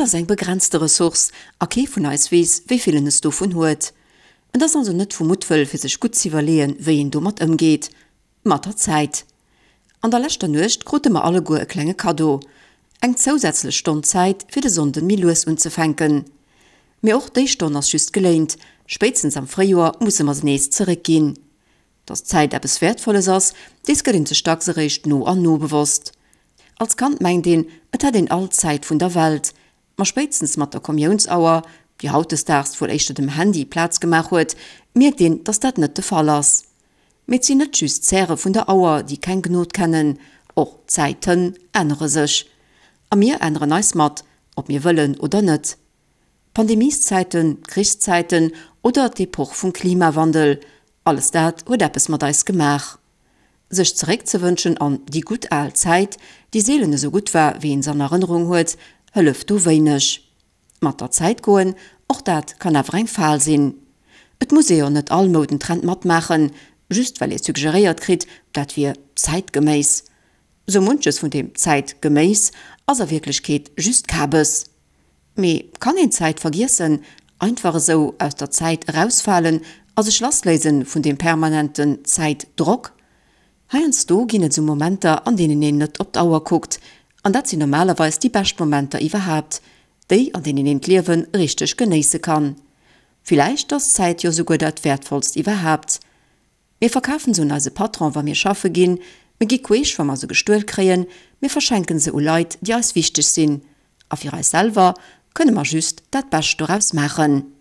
ass eng begrenzte Ressource a kee vun eis weess, wéi vill en es dovun huet. Et ass also net vu Muttwëll fir sech gutt z'iwwerleeën, wéi een domat ëmgeet. Mat der Zäit. An der leschter Nuecht krute mer alleguer e klenge Kaddo, eng zousätzlech Stonn Zäit fir de Sonnden méi lues unzefänken. Mee och déi Stonn ass just geléint, spéitstens am Fréijoer musse mer se nees zeréckginn. Dass d'Zäit eppes Wäertvolles ass, dees gëtt een sech dacks eréischt no an no bewosst. Als Kand mengt een, et hätt een all d'Zäit vun der Welt. Ma spéitstens mat der Kommiounsauer, déi hautdesdaags wuel éischter dem Handy Plaz gemaach huet, mierkt een, dass dat net de Fall ass. Mee et sinn net just d'Zäre vun der Auer, déi keng Gnod kennen, och d'Zäiten ännere sech. A mir änneren eis mat, ob mir wëllen oder net. Pandemieszäiten, Krichszäiten oder d'Epoch vum Klimawandel, alles dat huet eppes mat eis gemaach. Sech zeréckzewënschen an déi gutt al Zäit, déi seelen esou gutt war, wéi een se an Erënnerung huet, hëlleft do wéineg. Mat der Zäit goen, och dat kann awer eng Fal sinn. Et muss ee jo net all Moudentrend matmaachen, just well ee suggeréiert kritt, dat wier zäitgeméiss. Sou munches vun deem zäitgeméiss ass a Wierklechkeet just Kabes. Mee kann een d'Zäit vergiessen, einfach esou aus der Zäit erausfalen a sech lassléisen vun deem permanenten Zäitdrock? Heiansdo ginn et esou Momenter, an deenen een net op d'Auer kuckt, an dat sinn normalerweis déi bescht Momenter iwwerhaapt, déi an deenen een d'Liewe richteg genéisse kann. Villäicht ass d'Zäit jo souguer dat wäertvollst iwwerhaapt. Mir verkafen se un eise Patron, wa mir schaffe ginn, mir gi queesch, wa mer se gestuel kréien, mir verschenken se u Leit, déi eis wichteg sinn. A fir eis selwer kënne mer just dat Bescht doraus maachen.